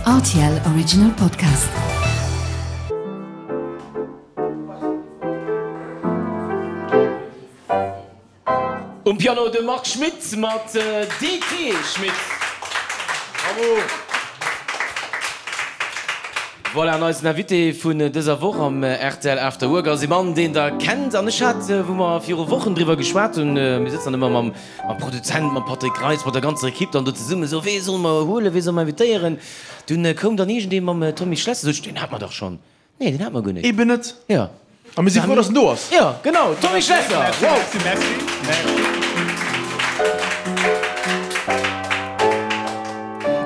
Rtl Original Podcast. Um Piano de Marc Schmitt mat DT Schmitt. Bravo! Voilà, an eisen Invité vun dëser Woch am rtl After Work ass ee Mann, deen der kennt. An ech hat, wou mer viru Wochen driwwer geschwat hunn, mir sëtzen dann ëmmer mam Produzent, mam Patrick Reitz, mat der ganzer Ekipp dann do zesummen, esou, wee solle mer huelen, wee solle mer invitéieren? Dunn koum dann iergendee mam Tommy Schlesser, sot ech, deen hate mer dach schonn. Nee, deen hat mer guer net. Eben net. Jo. A mir si frou, dass en do ass. Jo, genau, Tommy Schlesser! Merci, Wow! merci, merci, merci.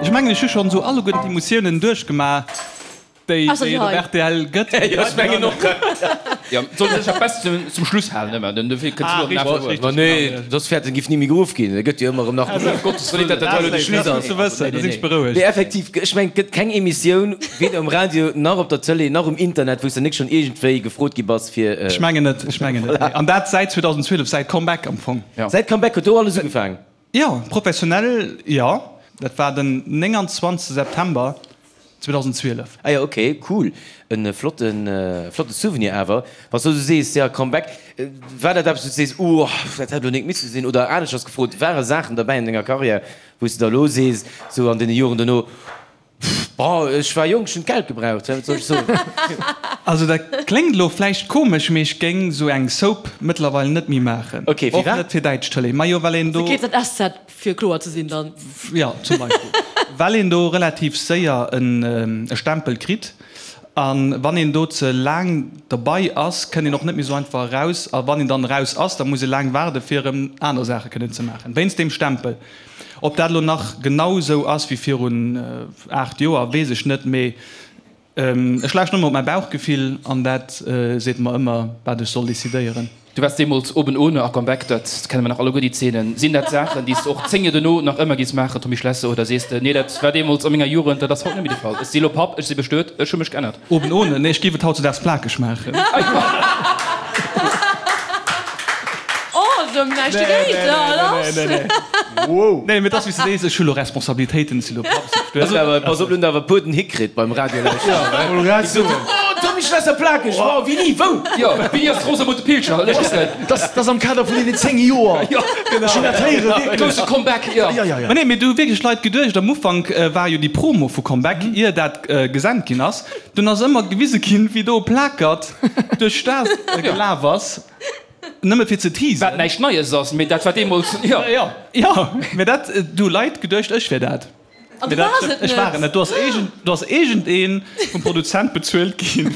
Ech mengen, ech hu schonn esou alleguerten d'Emotiounen duerchgemaach, déi Ausser déi déi et op hei. rtl gëtt. Jo, ech mengen och. Jo, et sollt ee sech dat Best zum Schluss halen ëmmer, den dofir kënnt Ah, elo den richtig, After Work. richtig, Ma nee, genau. soss fäert en giff ni méi geruff ginn. E gëtt jo ëmmer erëm nach geruff. Gottes Wëllen, dat dat hei elo de Schluss Dat ass ass. gutt ze wëssen, da sinn ech berouegt. Nee, effektiv, ech mengen, et gëtt keng Emissioun, Weder um Radio, nach op der Tëlee, nach um Internet, wou s de nik schonn iergendwéi gefrot gi bass fir. Ech mengen net, ech mengen net, nee. An dat säit 2012, säit Comeback am Fong. Säit Comeback huet do alles ugefaang? Jo, professionell jo. Dat war den 29 September 2012. Ah jo, ok, cool. E flotten, flotte Souvenir awer. Wann s du esou sees, jo, Comeback, war dat eppes, wou s du sees, oh, dat hätt elo nik misse sinn? Oder aneschters gefrot, ware Saachen derbäi an denger Karriär, wou s de der elo sees, sou an deene Joren dono, Bon, ech war jonk, ech hunn d'Geld gebraucht, wat soll ech soen? Also dat kléngt elo vläicht komesch, mee ech géing sou eng Soap mëttlerweil net méi maachen. Ok, Och firwat? net fir däitsch Tëlee. Majo, well een do. GZSZ, fir kloer ze sinn dann. Jo, zum Beispill. Well een do relativ séier e Stempel kritt. A wann een do ze laang derbei ass, kënnt een och net méi sou einfach eraus. A wann een dann eraus ass, da muss ee laang waarde fir erëm aner Saache kënnen ze maachen, wéinst deem Stempel. Ob dat elo nach genau esou ass wéi virun 8 Joer, weess ech net, mee ech lauschten ëmmer op mäi Bauchgefill an dat seet mer ëmmer, wat ech soll decidéieren. Du waars deemools oben ohne a Comeback, dat kenne mer nach alleguer déi Zeenen. Sinn dat Saachen, déi s de och 10 Joer dono nach ëmmer giss maachen, Tommy Schlesser, oder sees de, nee dat war deemools a menger Jugend, dat ass haut net méi de Fall, ech si elo Papp, ech si bestuet, ech hu mech geännert? Oben ohne? Nee, ech géif et hautzedaags plakeg maachen. Oh, se hunn näischt dogéint, lass! Nee, mee et ass wéi s de sees, ech hu lo Responsabilitéiten, ech si lo Papp, ech si bestuet. Awer pass op, lo hunn der awer e puer den Hick kritt beim Radio lauschteren. Déi gesot hunn, Oh, Tommy Schlesser plakeg, wow, wéini, wou? Jo, wéini ass d'Rosamunde Pilcher? Ech weess net. Dat ass am Kader vun deenen 10 Joer. Ech hunn dat héieren, wierklech. Grousse Comeback, jo. Ma nee, mee do hu wierklech Leit geduecht, am Ufank war jo déi Promo vu Comeback, ier dat gesent ginn ass, dunn ass ëmmer gewise ginn, wéi do e Plakert duerch d'Stad gelaf ass, nëmme fir ze teasen. Wat näischt Neies ass, mee dat war deemools, jo. Jo, mee dat, do hu Leit geduecht, ech wier dat. An du waars et net? Ech war et net. Do ass iergend, do ass iergendee vum Produzent bezuelt ginn,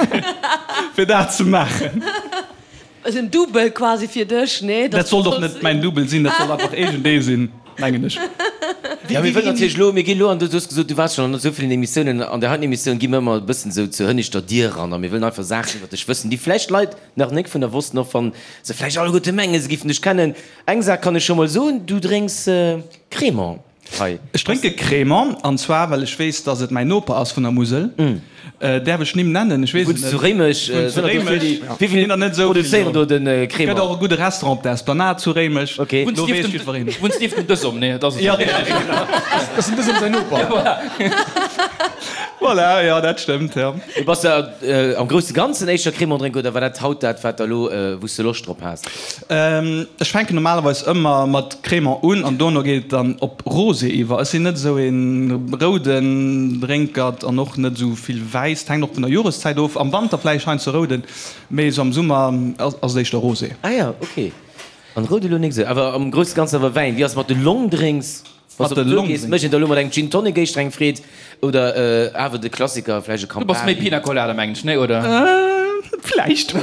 fir dat ze maachen. Ass en Double quasi fir dech, nee? Dat sollt och net mäin Double sinn, dat sollt einfach iergendee sinn, mengen ech. Jo, mir wëllen natierlech elo, mir ginn elo an, du hues gesot, du waars schonn an esou villen Emissiounen, an där heiten Emissioun gi mir ëmmer e bëssen esou zur hënneschter Dier eran a mir wëllen einfach Saachen iwwer dech wëssen, déi vläicht Leit nach nik vun der wossten, och wann se vläicht alleguerte mengen, se giffen dech kennen. Eng Saach kann ech scho mol soen, du drénks Crémant. Hei. Ech drénke Crémant, an zwar well ech weess, dass et mäin Noper ass vun der Musel. Däerf ech Nimm nennen? Ech weess et Wunns net. zu Réimech? Ech wunnen zu Réimech. Wéi vill produzéieren do de Crémant? Gëtt och e gudde Restaurant op der Esplanade zu Réimech. Ok. Do weess jiddwereen. Wunns nieft dem Dësum? Nee, et ass Jo, richteg. Dat ass den Dësum säin Noper. Voilà, jo, dat stëmmt, jo. Mee bass de am grousse Ganzen éischter Crémant drénker oder war dat haut dat, wat der elo, wou s de Loscht drop has? Ech fänken normalerweis ëmmer mat Crémant un an dono geet et dann op Rosé iwwer. Ech sinn net esou een rouden Drénkert an och net esou vill Wäiss. Et hänkt och vun der Joreszäit of. Am Wanter vläicht heiansdo rouden, mee esou am Summer ass et éischter Rosé. Ah jo, ok. An roud elo nik esou, awer am grousse Ganzen awer Wäin. Wéi ass et mat de Longdrinks? Wann s de op d'Tour gees, mécht een da lo mat engem Gin Tonic éischter eng Freed oder awer de Klassiker, vläicht e Du bass méi Campari? Pina Colada, mengen ech, nee, oder? Vläicht.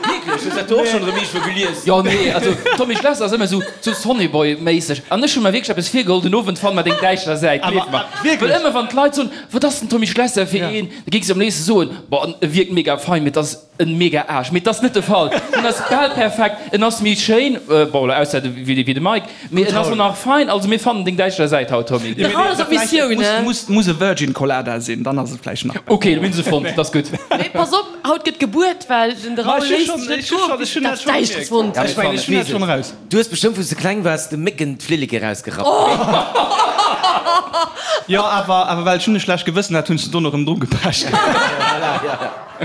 Wierklech? Hues dat do och schonn erëm iergendwou gelies? Jo, nee, also Tommy Schlesser ass ëmmer esou sou Sonnyboy-méisseg. An ech hu mer wierklech eppes virgeholl, den Owend fanne mer deng däischter Säit, gleef mer. Well ëmmer wann d'Leit soen, wat ass den Tommy Schlesser fir een, da géing se am léifste soen, boah, e wierkt mega fein, mee et ass En mega Aarsch, mee et ass net de Fall. En ass bal perfekt, en ass méi schéin, bon elo ausser de wéi de Mike, mee en ass och nach fein. Also mir fannen deng däischter Säit haut, Tommy. De Raoul ass op Missioun, ne? Muss muss e Virgin Colada sinn, dann ass et vläicht nach besser. Ok, mir hunn se fonnt, dat ass gutt. Mee pass op, haut gëtt gebuert, well den de Raoul léisst sech net goen, bis en dat Däischteres fonnt huet. Ech mengen, ech hunn dat schonn eraus. Du hues bestëmmt wou s de kleng waars de Mécken d'Flilleke rausgerappt. Jo, awer, awer well ech hunn e schlecht Gewëssen hat, hunn ech se dono erëm dru gepecht.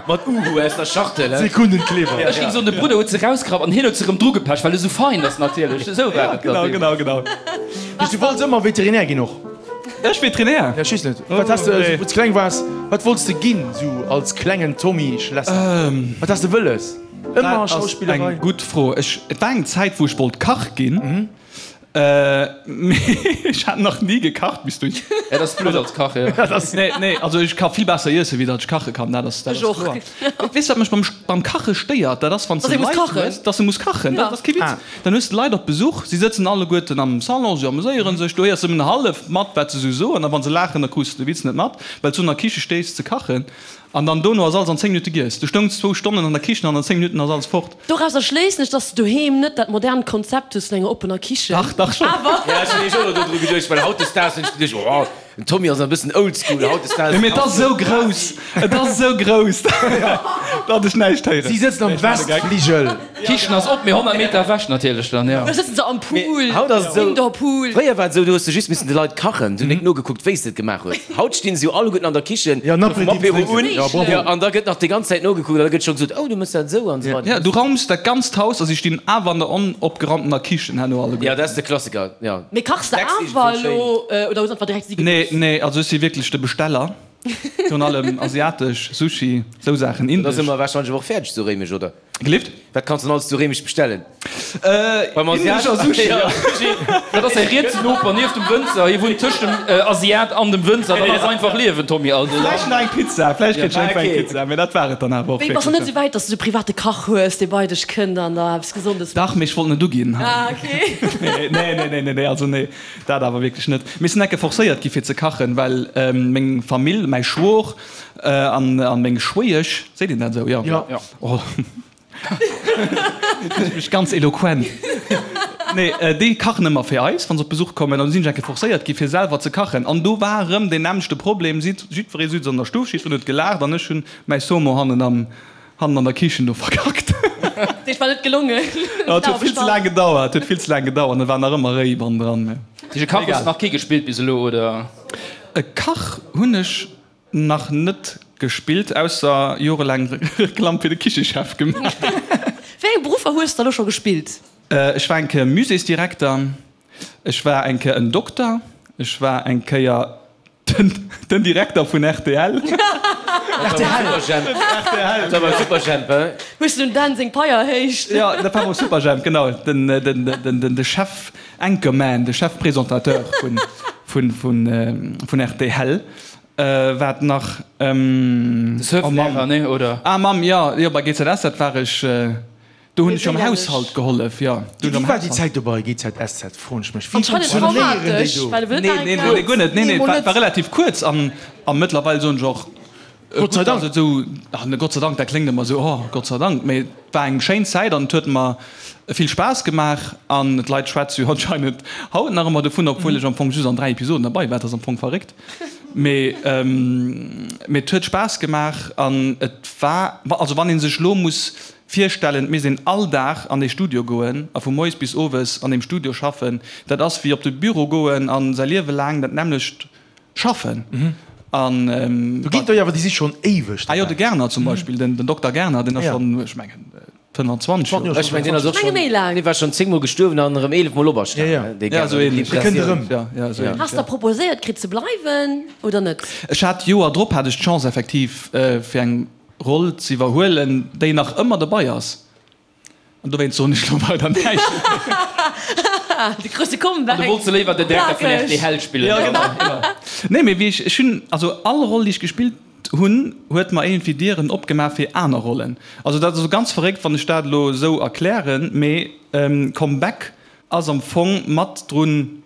Mat Uhu aus der Schachtel, he? Sekundenkleber. Ech géing soen, de Brudder huet se rausgerappt an hien huet se erëm dru gepecht, well e sou fein ass natierlech. Esou war et Genau, genau, genau. Bis du wollts ëmmer Veterinär ginn och? Ech Veterinär? Ja, ech weess net. Wat has de, wou s de kleng waars, wat wollts de ginn, sou als klengen Tommy Schlesser? Wat has de wëlles? Ëmmer Dat ass Schauspillerei? eng gutt Fro. Ech, et war eng Zäit, wou ech wollt Kach ginn. Mee ech hat nach ni gekacht bis dunn. Ja, dat ass blöd als Kach, jo. Nee, nee, also ech ka vill besser iessen, wéi datt ech kache kann, dat ass, dat ass kloer. Weess wat mech beim, beim Kache stéiert? Dat ass, wann s de Leit hues, datt se muss kachen. Dat ass kee Witz. Dann hues de Leit op Besuch, si sëtzen alleguerten am Salon, si ameséiere sech, du héiers nëmmen hallef mat, wat se esou soen, a wa se laachen, da krus de de Witz net mat, well s du an der Kiche stees ze kachen. An dann dono ass alles an 10 Minutte giess. Du stoungs zwou Stonnen an der Kichen an an 10 Minutten ass alles fort. Dorauser schléissen ech, dass de doheem net dat modernt Konzept hues vun enger oppener Kichen. Dach, dach schon. Awer. Ja, ech hunn nämlech och elo dodru geduecht, well hautdesdaags hunn ech geduecht, oh, den Tommy ass e bëssen oldschool hautdesdaags. Nee, mee et ass esou grouss, et ass esou grouss, datt ech näischt héieren. Si sëtzen am Westfligel. D'Kichen ass op, mee 100 Meter ewech natierlech dann, jo. Da sëtzen se am Pool, Haut ass et esou, Indoor-Pool. fréier war et esou, du hues de just missen de Leit kachen, du hues nik nogekuckt, wéi s de et gemaach hues. Haut stinn se jo alleguerten an der Kichen, Ja, en vum Apéritif Apéro un, drénken. Ja, bravo. jo, an da gëtt nach déi ganz Zäit nogekuckt an da gëtt scho gesot, oh, du méchs dat esou an esou weider. Ja, du raums dat ganzt Haus a si stinn awer an der onopgerammtener Kichen herno alleguerten. Ja, dat ass de Klassiker, jo. Mee kachs de Decks iergendwou awer schéin. elo oder hues einfach direkt si Nee, gelooss? nee, also ech si wierklech de Besteller, virun allem asiatesch, Sushi, esou Saachen, Da indesch. si mer warscheinlech awer och fäerdeg zu Réimech, oder? Gelift? Wat kanns de denn alles zu Réimech bestellen? Beim Asiat? Asiat? Sushi, ja. Dat ass säi rietsen Noper nieft dem Wënzer. Hie wunnt tëscht dem Asiat an dem Wënzer. Dat ass einfach Liewen, Tommy. Also, ja. Vläicht nach eng Pizza, vläicht kritt ech iergendwou eng Pizza, mee dat war et dann awer och Wéi, bass du net wierklech. esou wäit, dass du de private Kach hues, dee bei dech kënnt an der eppes Gesondes Dach, mécht? mee ech wollt net uginn. Ah, okay. Nee, nee, nee, nee, nee, also nee, dat awer wierklech net. Mir sinn enke forcéiert gi fir ze kachen, well meng Famill, mäi Schwor an meng Schwéiesch, seet een dat esou? Jo. Jo. Oh, ech mech ganz eloquent. Nee, déi kachen ëmmer fir eis, wa se op Besuch kommen. An du sinn ech eng Kéier forcéiert gi fir selwer ze kachen. An do war erëm deen nämmlechte Problem, jiddweree sutz an der Stuff, jiddwereen huet gelaacht an ech hunn mäi Saumon hannen am, hannen an der Kichen do verkackt. Dat heescht, war net gelongen? Jo, et huet vill ze laang gedauert, huet vill ze laang gedauert an et war nach ëmmer réi bannendran. Mee Dech e Kach hues de nach kee gespillt bis elo, oder? E Kach hunn ech Nach net gespillt, ausser jorelaang Reklamm fir de Kichechef gemaach. Wéi eng Beruffer hues de elo scho gespillt? Ech war eng Kéier Muséesdirekter, ech war eng Kéier en Dokter, ech war eng Kéier den Direkter vun rtl. Superjhemp. Dat war beim Superjhemp, he? Hues de dem Dan seng Pai erhéicht? Jo, dat war beim Superjhemp, genau. Den Chef Anchorman, de Chef Présentateur vun rtl. Wat nach? De Surflehrer, nee, oder? Ah Mamm, jo, jo, bei GZS, dat war ech, do hunn ech jo am Haushalt gehollef, jo. Wéi war déi Zäit do bei GZSZ, froen ech mech. Wéi Anscheinend funktionéieren déi traumatesch, do? well e wëll Nee, nach eng nee, nee, guer net, nee, nee, Nee, mol war net. war relativ kuerz an a mëttlerweil soen ech och, Gott sei gutt, Dank. dass et esou, ach ne, Gott sei Dank, dat kléngt ëmmer esou, oh, Gott sei Dank, mee et war eng schéin Zäit an et huet mer vill Spaass gemaach an d'Leit schwätze jo anscheinend haut nach ëmmer dovun, obwuel ech am Fong just an 3 Episoden derbei war, dat ass am Fong verréckt. Mee mee et huet Spaass gemaach an et war, also wann ee sech elo muss virstellen, et misst een all Dag an dee Studio goen a vu moies bis owes an deem Studio schaffen, dat ass wéi op de Büro goen a säi Liewe laang dat nämmlecht schaffen. An Do ginn der jo awer, déi si schonn éiweg ah jo, de dobäi. Gerner zum Beispill, den Dokter Gerner, deen ass schonn, ech mengen, 25 Joer. Ech mengen deen ass och Menge schonn, méi laang. dee war schonn 10 mol gestuerwen an erëm 11 mol operstanen, Ja, ja. dee Ja, esou Gerner. ähnlech. Dee kënnt erëm. Ja, ja, esou ähnlech, Has ja. der proposéiert kritt ze bleiwen oder net? Ech hat d'Joer drop hat ech d'Chance effektiv fir eng Roll z'iwwerhuelen, déi nach ëmmer dobei ass. An dowéinst soen ech lo weider näischt. De grousse Comeback. An du wollts léiwer den Direkter vun Plakeg. rtl spillen. Ja, genau, genau. Nee, mee wéi ech, ech hunn, also all Roll déi ech gespillt hunn, huet mer iergendwéi Dieren opgemaach fir aner Rollen. Also dat ass elo ganz verréckt, wann ech dat elo esou erklären, mee Comeback ass am Fong mat drun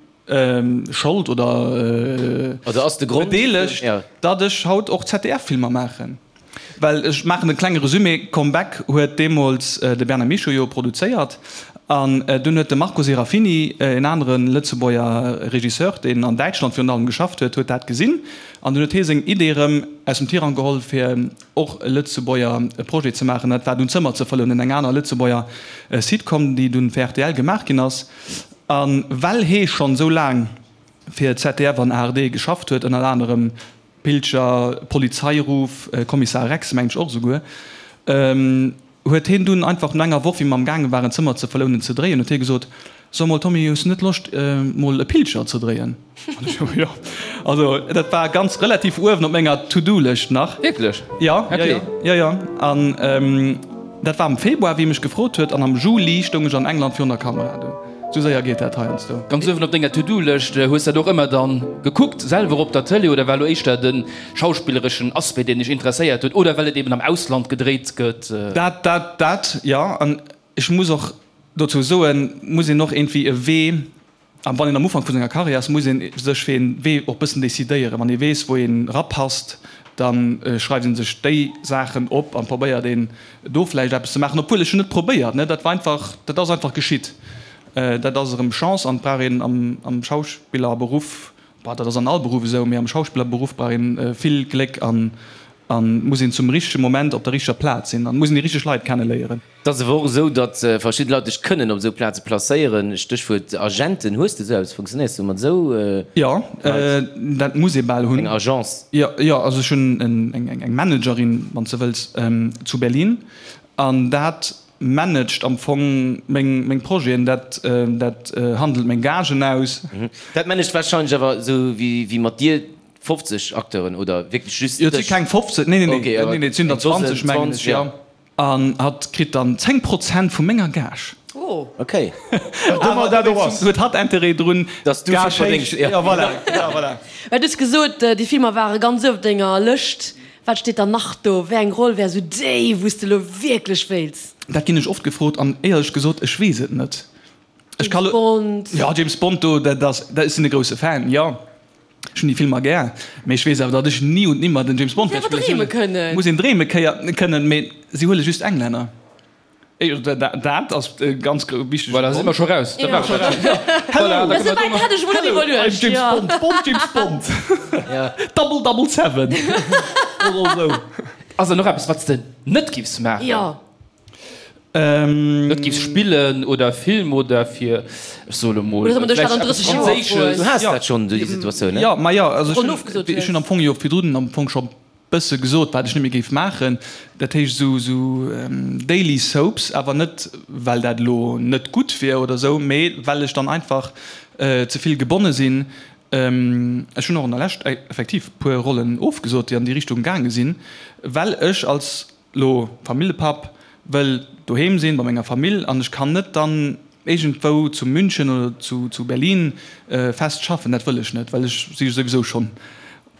Schold oder Also ass de Grond, bedeelegt, ja. datt ech haut och ZDF-Filmer maachen. Well ech maachen e klenge Resumé, Comeback huet deemools de Bernard Michaux jo produzéiert an dunn huet de Marco Serafini, en anere Lëtzebuerger Regisseur, deen an Däitschland virun allem geschafft huet, huet dat gesinn an dunn huet hie seng Idee erëm aus dem Tirang geholl fir och e Lëtzebuerger Projet ze maachen. Dat war dunn Zëmmer ze fëllen, eng aner Lëtzebuerger Sitcom, déi dunn fir rtl gemaach ginn ass. A well hee schonn esou laang. fir ZDF an ARD geschafft huet, ënner anerem Pilcher, Polizeiruf, Kommissar Rex mengen ech och esouguer, huet hien dunn einfach no enger Woch, wéi mer am gaange waren Zëmmer ze verlounen, ze dréien, huet hie gesot, So mol Tommy, hues du net Loscht mol e Pilcher ze dréien? An ech, Jo. Also dat war ganz relativ uewen op menger To-Do-Lëscht nach. Wierklech? Jo, jo, jo, jo, jo. An dat war am Februar, wéi e mech gefrot huet, an am Juli stoung ech an England virun der Kamera dunn. Sou séier geet dat heiansdo. Ganz uewen op denger To-Do-Lëscht. Hues dat och ëmmer dann gekuckt, selwer op der Tëlee, oder war lo éischter de schauspillereschen Aspect, deen dech interesséiert huet, oder well et eben am Ausland gedréit gëtt? Dat, dat, dat, jo. An ech muss och dozou soen, muss een och iergendwéi e Wee, a wann een am Ufank vu senger Karriär ass, muss ee sech fir ee Wee och bëssen decidéieren. Wann ee weess, wou een erapasst, da schreift ee sech déi Saachen op an probéiert een do vläicht eppes ze maachen, obwuel ech hunn net probéiert, ne, dat war einfach, dat ass einfach geschitt. Dat ass erëm Chance an et brauch een am Schauspillerberuff, bon, dat ass an all Beruff esou, mee am Schauspillerberuff brauch een vill Gléck an muss een zum richtege Moment op der richteger Plaz sinn an muss een déi richteg Leit kenneléieren. Et ass awer och esou, datt verschidde Leit dech kënnen op esou Plaze placéieren. Stéchwuert Agenten. Hues de esou eppes? Funktionéiers du mat esou Leit? Jo, dat muss ee bal hunn. Eng Agence? Jo, jo, also ech hunn eng Managerin, wann s de wëlls, zu Berlin an dat managt am Fong meng Projeten, dat dat handelt meng Gagen aus. Dat managt warscheinlech awer esou wéi mat dir 50 Acteuren oder wierklech just dech? Jo, et si keng 50, nee, nee, nee, et sinn der 20 mengen ech, jo. An hatt kritt dann 10 Prozent vu menger Gage. Oh. Ok. Wat ëmmer dat och ass. Huet hatt Interêt drun, Dass du vill verdéngs. Ja, voilà. Ja, voilà. Well du hues gesot, déi Filmer ware ganz uewen op denger Lëscht. Wat steet dann nach do? Wéi eng Roll wär esou déi, wou s de elo wierklech wéilts? Dat ginn ech oft gefrot an éierlech gesot, ech weess et net. Ech ka James lo. Bond? Ja, James Bond, do, dat ass, dat, ech sinn e grousse Fan, jo. Ech hunn déi Filmer gär, mee ech weess awer, datt ech ni und nimmer den James Bond wäert spillen. Muss een awer dreeme kënnen. Muss een dreeme kënnen, mee si huele just Englänner. Dat ass e ganz wichtege Voilà, si mer scho raus. Da war scho raus. Hello, Esou wäit hat ech emol net iwwerluecht. I'm James Bond, Bond, James Bond. Double, double seven. Oder esou. Ass der nach eppes, wat s de net giffs maachen? Jo. Net giffs spillen oder Film oder fir, ech soe lo mol, vläicht eppes Franséisches. Du has dat schonn, déi Situatioun, ne? Jo, ma jo, also ech hunn am Fong jo virdrun am Fong scho bësse gesot, wat ech net méi géif maachen. Dat heescht esou esou Daily Soaps, awer net well dat elo net gutt wier oder esou, mee well ech dann einfach ze vill gebonne sinn. Ech hunn och an der Lescht effektiv puer Rollen ofgesot, déi an déi Richtung gaange sinn, well ech als Lo Familljepapp, wëll doheem sinn bei menger Famill an ech kann net dann iergendwou zu München oder zu Berlin fest schaffen. Dat wëll ech net, well ech si souwisou schonn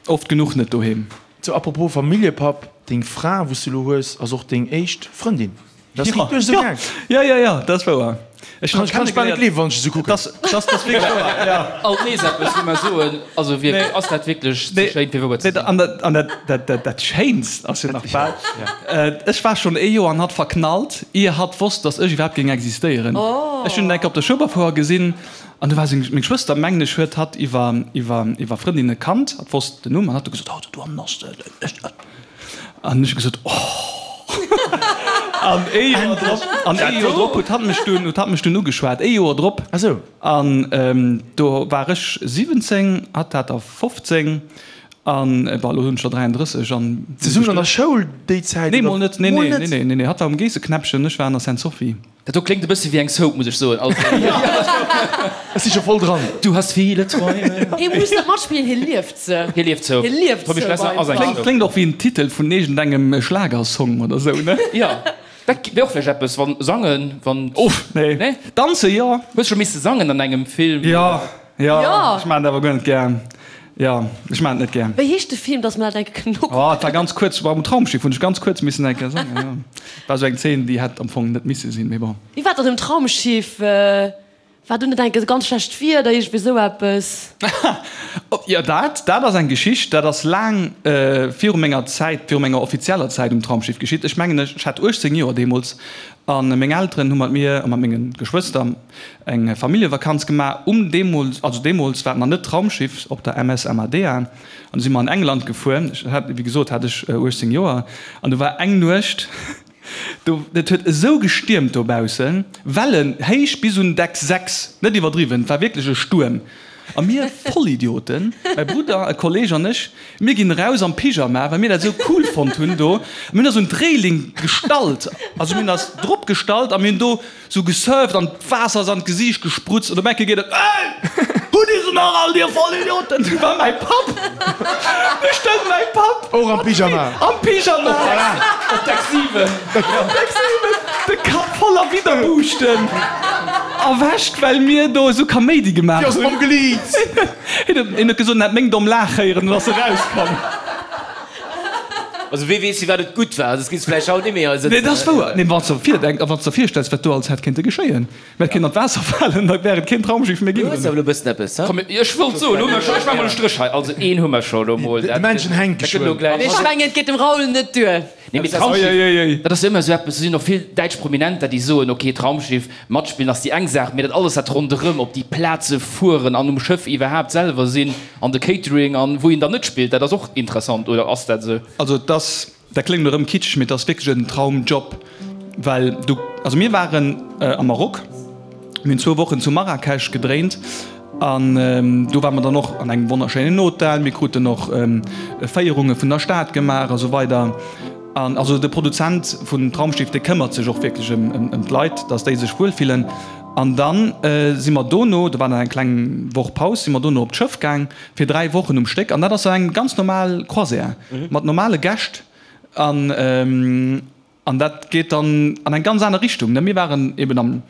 oft genuch net doheem. Sou, apropos Familljepapp, deng Fra wou s de lo hues ass och deng éischt Frëndin. Dat ass wierklech esou gaang? Jo, jo, jo, dat ass wouer. Ech kann ech bal net gleewen, wann ech esou kucken. Dat ass wierklech wouer, jo. Alt nees eppes, wou mer soen, also wierklech, ass dat wierklech ze schéin fir wouer ze sinn? An dat, dat Schéinst ass jo nach bal, ech war schonn ee Joer an hatt verknallt, ier hatt wosst, datt ech iwwerhaapt géing existéieren. Ech hunn en eng Kéier op der Schueberfouer gesinn an du war seng, meng Schwëster, mengen ech, huet hatt iwwer, iwwer, iwwer Frëndinne kannt, hatt wosst den Numm an hatt huet gesot, oh, do hannen ass de, An ech hu gesot, Oh! An ee Joer drop, an ee Joer drop huet hatt mech dunn, huet hatt mech dunn ugeschwat. Ee Joer drop. Ah sou. An do war ech 17, hatt hat der 15. An, bon, elo hunn ech der 33 an. Zesummen an der Schoul déi Zäit, Nee, mol net. Nee, nee, nee, nee, nee, nee. Hatt war um Geesseknäppchen, ech war an der Sainte-Sophie. Dat do kléngt e bësse wéi eng Soap, muss ech soen. Also, Ech si scho voll dran. Du hast viele Träume. Hie muss net matspillen, hie lieft se. Hie lieft Soap. Hie lieft Tommy Soap Schlesser ass eng einfach. Soap. Kléngt och wéi en Titel vun iergendengem Schlagersong oder sou, ne? Jo, dat wär och vläicht eppes, wann sangen, wann. Uff, nee. Nee? Danze jo. Hues scho misse sangen an engem Film? Jo, jo, Jo. ech maachen dat awer guer net gär. Jo, ech maachen et net gär. Wéi heescht de Film, dass mer dat eng Kéier kënnen nokucken? Oh, et war ganz kuerz, war um Traumschiff, hunn ech ganz kuerz missen eng Kéier sangen, jo. War esou eng Zeen, déi hätt am Fong net misse sinn, mee bon. Wéi war dat um Traumschiff? War do net eng Kéier ganz schlecht Wieder, iergendwéi esou eppes? Jo, dat, dat ass eng Geschicht, dat ass laang viru menger Zäit, viru menger offizieller Zäit um Traumschiff geschitt. Ech mengen, ech hat 18 Joer deemools a meng Elteren hu mat mir a mat menge Geschwëster eng Familljevakanz gemaach um deemools, also deemools war et nach net Traumschiff, op der MS Amadea an du si mer an England gefuer. Ech hat, wéi gesot, hat ech 18 Joer an du war eng Nuecht, do, et huet esou gestiermt dobaussen, Wellen héich bis un Deck 6, net iwwerdriwwen, et war wierklech e Stuerm. A mir Vollidioten, mäi Brudder, e Kolleg an ech, mir ginn eraus am Pyjama, well mir dat esou cool fonnt hunn do. A mir hunn eis un d'Reeling gestallt, also mir hunn eis drop gestallt a mir hunn do sou gesurft an d'Waasser ass an d'Gesiicht gesprutzt an op eng Kéier geet et, Ey! Hutt Dir se nach all, Dir Vollidioten? Du war mäi Papp! Du stoung mäi Papp! Och am Pyjama? Am Pyjama! Op Deck 7! Op Deck 7! De Kapp voller Widderbuuschten erwächt, well mir do esou Kaméidi gemaach hunn. Dir ass ongeliebt! Hien huet gesot, en hätt meng domm Laach héieren an ass erauskomm. Also wee weess firwat et gutt war, soss géifs vläicht haut net méi hei sëtzen. Nee, dat ass wouer. Nee, wann s de virdenks a wann s de der virstells, wat do alles hätt kéinte geschéien. Mir hätt kéinten an d'Waasser falen, da wär et keen Traumschiff méi ginn. Du hues awer elo e bëssen eppes, he? Komm, ech wollt soen, hu mer scho, ech maache mol e Stréch hei. Also een hu mer scho elo mol. De Männchen hänkt Dat gëtt elo geschwënn. gläich. Ech mengen, et geet dem Raoul net duer. Nee, mee Traumschiff, dat ass jo ëmmer esou eppes, do sinn och vill däitsch Prominenter, déi soen, ok, Traumschiff, matspillen ass déi eng Saach, mee dat alles, dat ronderëm, op déi Plaze fueren an um Schëff iwwerhaapt selwer sinn an de Catering an wou een dann net spillt, dat ass och interessant, oder ass dat esou? Also et ass, dat kléngt elo erëm kitscheg, mee et ass wierklech en Traumjob, well du, also mir waren am Maroc, mir hunn zwou Wochen zu Marrakesch gedréint an do ware mer dann och an engem wonnerschéinen Hotel, mir kruten och Féierunge vun der Stad gemaach a sou weider. An also de Produzent vun Traumschiff, dee këmmert sech och wierklech ëm d'Leit, datt déi sech wuel fillen. An da si mer dono, do war dann eng kleng Woch Paus, si mer dono op d'Schëff gaang fir 3 Wochen um Stéck an dat ass eng ganz normal Croisière mat normale Gäscht an an dat geet dann an eng ganz aner Richtung. Mir waren eben am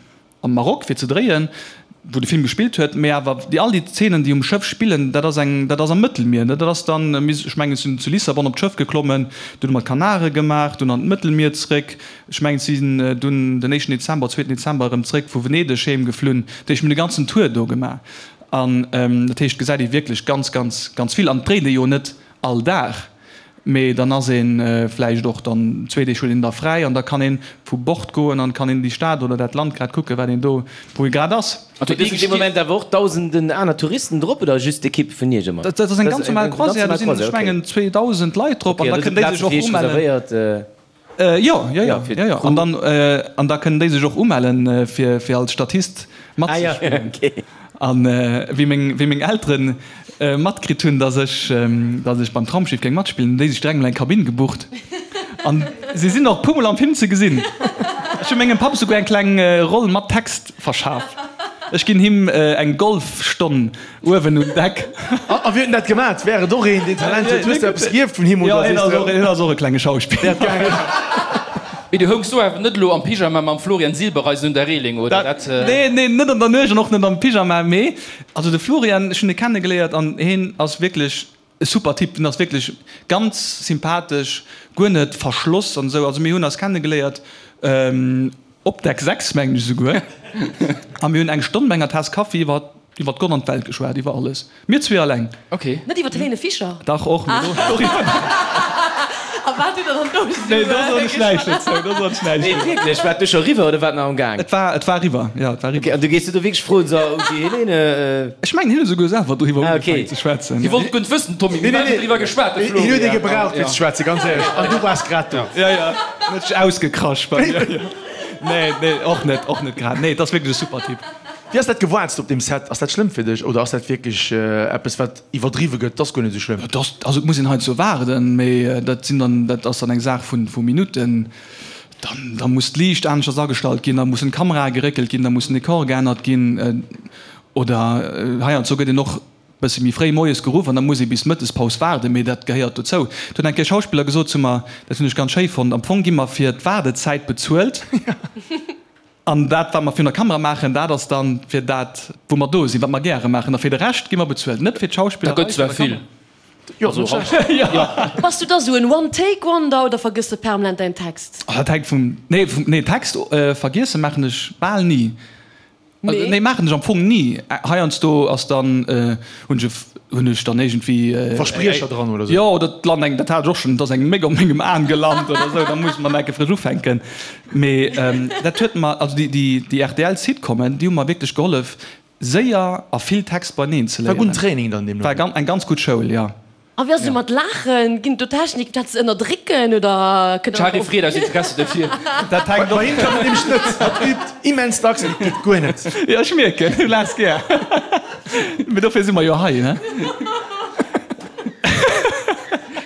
am Maroc fir ze dréien, wou de Film gespillt huet, mee awer déi all déi Zeenen déi um Schëff spillen, dat ass eng dat ass am Mëttelmier, dat ass dann, ech mengen ech sinn zu Lissabon op d'Schëff geklommen, dunn hu mer d'Kanare gemaach, dunn an d'Mëttelmier zréck, ech mengen si sinn dunn den éischten Dezember, zweeten Dezember erëm zréck vu Venedeg heem geflunn, dat heescht mir hunn de ganzen Tour do gemaach. An dat heescht, gesäit ee wierklech ganz, ganz, ganz vill. An et dréit ee jo net all Dag, mee dann ass ee vläicht och dann zwee Deeg huet een da fräi an da kann ee vu Bord goen an kann een déi Stad oder dat Land grad kucken, wat een do, wou ee grad ass. An do sinn dee Moment awer och dausenden aner Touristen drop oder just d'Ekipp vun Iech ëmmer? Dat ass eng ganz normal Croisière, do sinn, ech mengen, 2.000 Leit drop an da kënnen déi sech och umellen. Jo, jo, jo, jo, jo. An dann, an da kënnen déi sech och umellen, fir, fir als Statist matzespillen. An wéi meng, wéi meng Eltere matkritt hunn, dass ech, dass ech beim Traumschiff géing matspillen, hunn déi sech direkt mol eng Kabinn gebucht. An si sinn och e puermol am Film ze gesinn. Ech hu mengem Papp esouguer eng kleng Roll mat Text verschaf. Ech ginn him eng Golfstonn Uewen un Deck. A wien huet dat gemat? Wär et och een, deen Talent huet? Hues de eppes gierft vun him oder sees de. Hien ass och e klenge Schauspiller. Mee du houngs do awer net elo am Pyjama mam Florian Silbereisen un der Reeling, oder? Dat. Nee, nee, net an der Nuecht an och net am Pyjama, mee also de Florian, ech hunn e kennegeléiert an hien ass wierklech e super Typ. Hien ass wierklech ganz sympathesch, guer net verschloss an esou. Also mir hunn eis kennegeléiert Op Deck 6, mengen ech esouguer. A mir hunn eng Stonn bei enger Taass Kaffi iwwer iwwer Gott an d'Welt geschwat, iwwer alles. Mir zwee alleng. Ok. Net iwwer d'Helene Fischer? Dach, och, mee do, doriwwer. A wat hutt der dann do esou Nee, do soen ech näischt dozou, do soen ech näischt Nee, dozou. wierklech, war et du scho riwwer oder war et nach am Gaang? Et war, et war riwwer, jo, et war riwwer. Ok, an du gees du do wierklech froen, so, ok, Helene, Ech mengen, hien huet esouguer selwer doriwwer Ah, ok. ugefaangen ze schwätzen. Hie wollt guer net wëssen, Tommy, mir hunn driwwer geschwat, de Hien huet ee Florian. gebraucht fir ze schwätzen, ganz éierlech. An du waars grad do. Ja, ja, en huet sech ausgekrasch bei mir. Nee, nee, och net, och net grad. Nee, et ass wierklech e super Typ. Wéi ass dat gewaarzt op deem Set? Ass dat schlëmm fir dech oder ass dat wierklech eppes wat iwwerdriwwe gëtt? Et ass guer net esou schlëmm. Et ass, also et muss een heiansdo waarden, mee dat sinn dann, dat ass dann eng Saach vu vu Minutten. Dann, da muss d'Liicht aneschters agestallt ginn, da mussen d'Kamerae geréckelt ginn, da muss den Dekor geännert ginn oder heiansdo gëtt een och bësse méi fréi moies geruff an da muss ee bis d'Mëttespaus waarden, mee dat gehéiert dozou. Et huet eng Kéier e Schauspiller gesot zu mer, dat hunn ech ganz schéi fonnt, am Fong gi mer fir d'Waardezäit bezuelt an dat wat mer virun der Kamera maachen, dat ass dann fir dat wou mer do sinn, wat mer gäre maachen a fir de Rescht gi mer bezuelt, net fir d'Schauspillerei. Dat gëtt zwar vill. Bass du da sou en One-Take-Wonder oder vergëss de permanent däin Text? Dat hänkt vum, nee, vum, nee, Text vergiesse maachen ech bal ni. Nee, nee maachen ech am Fong ni. Heiansdo ass dann, hunn ech, hunn ech dann iergendwéi. Verspriecher dran oder sou? Jo, oder et lant eng, dat hat ech och schonn, et ass eng Méck op mengem Aen gelant oder sou, da muss mer enke frësch ufänken. Mee dat huet mer, also déi, déi, déi RTL-Sitcomen, déi hu mer wierklech gehollef, séier a vill Text beineen ze War léieren. gudden Training dann deemno. War eng ganz gutt Schoul, jo. A wéi ass et mat Laachen? Ginn et do Techniken fir dat ze ënnerdrécken oder kënnt D'Shari freet aus Interesse dofir. Dat hänkt och. Bei him klappt et nämlech net. Hatt übt immens dacks an et geet guer net. Jo, ech mierken, du laachs gär. Mee dofir si mer jo hei, ne?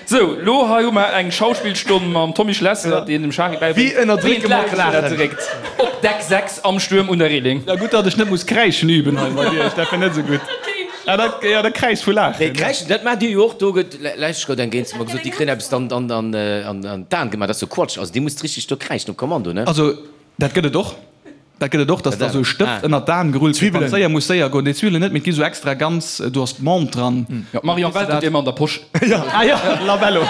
Sou, lo hei hu mer eng Schauspillstonn mam Tommy Schlesser, deen dem Shari bäibréngt, Wéi ënnerdrécke mer d'Laachen? ënnerdréckt. Op Deck 6 am Stuerm un der Reeling. Ja, gutt, datt ech net muss kräischen üben hei bei dir, dat wär net esou gutt. Ah, dat, ja, dat kräischt vu Laachen. Nee, kräischen, dat maacht dir jo och. Do gëtt lech gout eng Géint zu mer gesot, déi kréien eppes dann an, an, an d'Aen gemaach. Dat ass jo Quatsch. Also, dir musst richteg do kräischen op Kommando, ne? Also, dat gëtt et och. Dat gëtt et och, dass da sou e Stëft ënnert d'Aen gerullt gëtt, wann et séier muss séier goen. Déi Zwiwwelen net, mee et gi sou extra ganz, do ass d'Menthe dran. Jo, d'Marion Welt huet déi ëmmer an der Posch. Ah jo, Labello.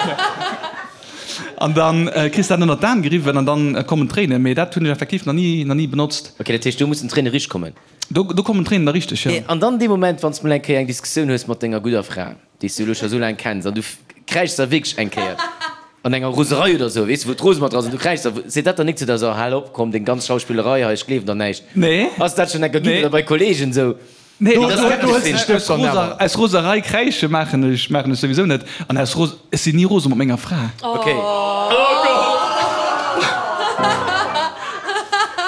An da kriss de dat ënnert d'Aen geriwwen an dann kommen d'Tréinen. Mee dat hunn ech effektiv nach ni, nach ni benotzt. Ok, dat heescht, do mussen d'Tréine richt kommen? Do, do kommen d'Tréinen da richteg, jo. An dann dee Moment, wann s de mol eng Kéier eng Diskussioun hues mat denger gudder Fra, déi s du elo scho sou laang kenns, an du kräischs da wierklech eng Kéier an enger Roserei oder sou, weess de, wou d'Rose mat dra ass, an du kräischs da, seet dat dann nik zu der, so, hal op, komm, deng ganz Schauspillerei hei, ech gleewen der näischt. Nee. Ass dat schonn eng Kéier ginn oder bei Kollegen sou? Nee, Do, do, do hëls de Stëft dann awer. Aus Roserei kräische maachen ech, maachen ech souwisou net. An aus Ros, ech sinn ni rose mat menger Fra. Ok.